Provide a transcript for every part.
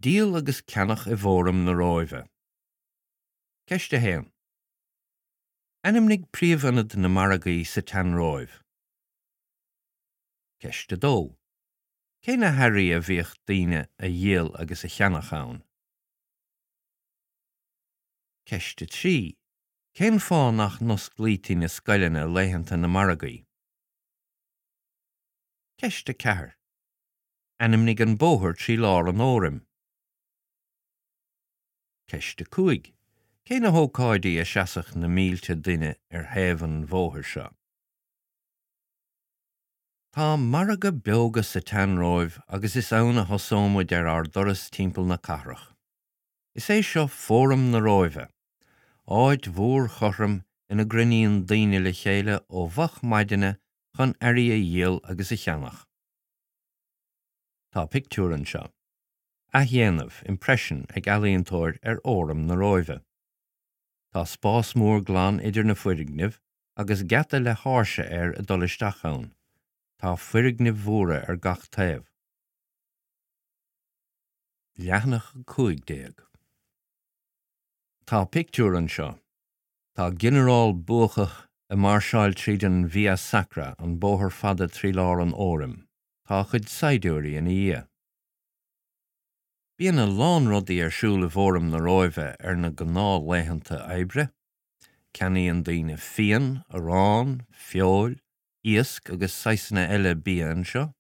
Díol agus ceannach i bhFóram na Róimhe. Ceist 1. Ainmnigh príomhionad na margaí sa tSean-Róimh. Ceist 2. Cé na hearraí a bhíodh daoine a dhíol agus a cheannach ann? Ceist 3. Cén fáth nach n-osclaítí na scoileanna laethanta na margaí? Ceist 4. Ainmnigh an bóthar trí lár an Fhóraim. Ceist 5. Cé na hócáidí a seasadh na mílte duine ar thaobh an bhóthair seo? Tá margadh beoga sa tSean-Róimh agus is ann a thosóimid ar ár dturas timpeall na cathrach. Is é seo Fóram na Róimhe, áit mhór chothrom ina gcruinníonn daoine le chéile ó mhoch maidine chun earraí a dhíol agus a cheannach. Tá pictiúr anseo. Athdhéanamh, impression, ag ealaíontóir ar Fhóram na Róimhe. Tá spás mór glan idir na foirgnimh agus geata le háirse air ag dul isteach ann. Tá foirgnimh mhóra ar gach taobh. Leathanach 15. Tá pictiúr anseo. Tá ginearál buacach ag máirseáil tríd an Via Sacra, an bóthar fada trí lár an Fhóraim. Tá a chuid saighdiúirí ina dhiaidh. Bíonn a lán rudaí ar siúl i bhFóram na Róimhe ar na gnáthlaethanta oibre. Ceannaíonn daoine fíon, arán, feoil, iasc agus saghsanna eile bia anseo.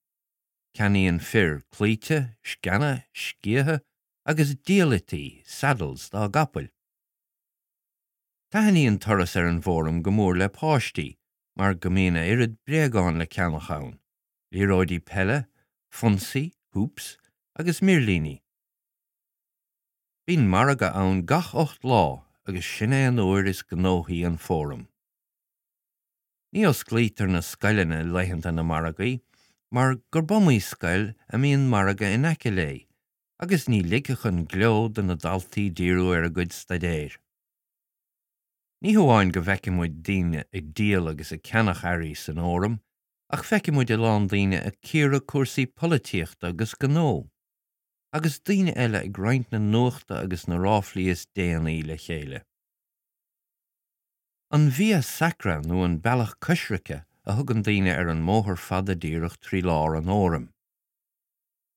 Ceannaíonn fir claíte, sceana, sciatha agus diallaití, saddles, dá gcapaill. Taitníonn turas ar an bhFóram go mór le páistí mar go mbíonn a oiread bréagán le ceannach ann. liathróidí peile, fonsaí, hoops, agus mirlíní. Bíonn margadh ann gach 8 lá agus sin é an uair is gnóthaí an Fóram. Ní osclaítear na scoileanna laethanta na margaí mar gurb iomaí scoil a mbíonn margadh in aice léi agus ní ligfeadh an gleo do na daltaí díriú ar a gcuid staidéir. Ní hamháin go bhfeiceann muid daoine ag díol agus ag ceannach earraí san Fhóram Ach feicfidh muid a lán daoine ag cíoradh cúrsaí polaitíochta agus gnó, agus daoine eile ag roinnt na nuachta agus na ráflaí is déanaí le chéile. An Via Sacra nó an Bealach Coisricthe a thugann daoine ar an mbóthar fada díreach trí lár an Fhóraim.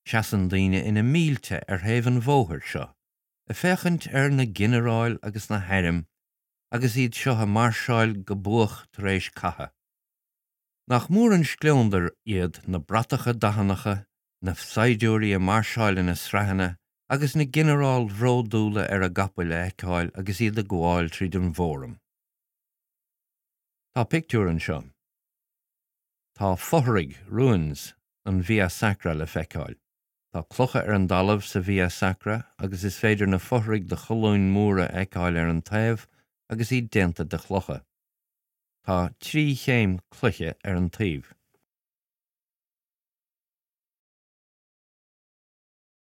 Seasann daoine ina mílte ar thaobh an bhóthair seo, ag féachaint ar na ginearáil agus na hairm agus iad seo ag mairseáil go buach tar éis catha. Nach mór an scleondar iad na bratacha dathannacha, na saighdiúirí ag mairseáil ina sraitheanna agus na ginearáil bhródúla ar a gcapaill a fheiceáil agus iad ag gabháil tríd an bhFóram. Tá pictiúr anseo. Tá fothraigh, ruins, an Via Sacra le feiceáil. Tá clocha ar an dtalamh sa Via Sacra agus is féidir na fothraigh de cholúin mhóra a fheiceáil ar an taobh agus iad déanta de chlocha. Tá trí chéim cloiche ar an taobh.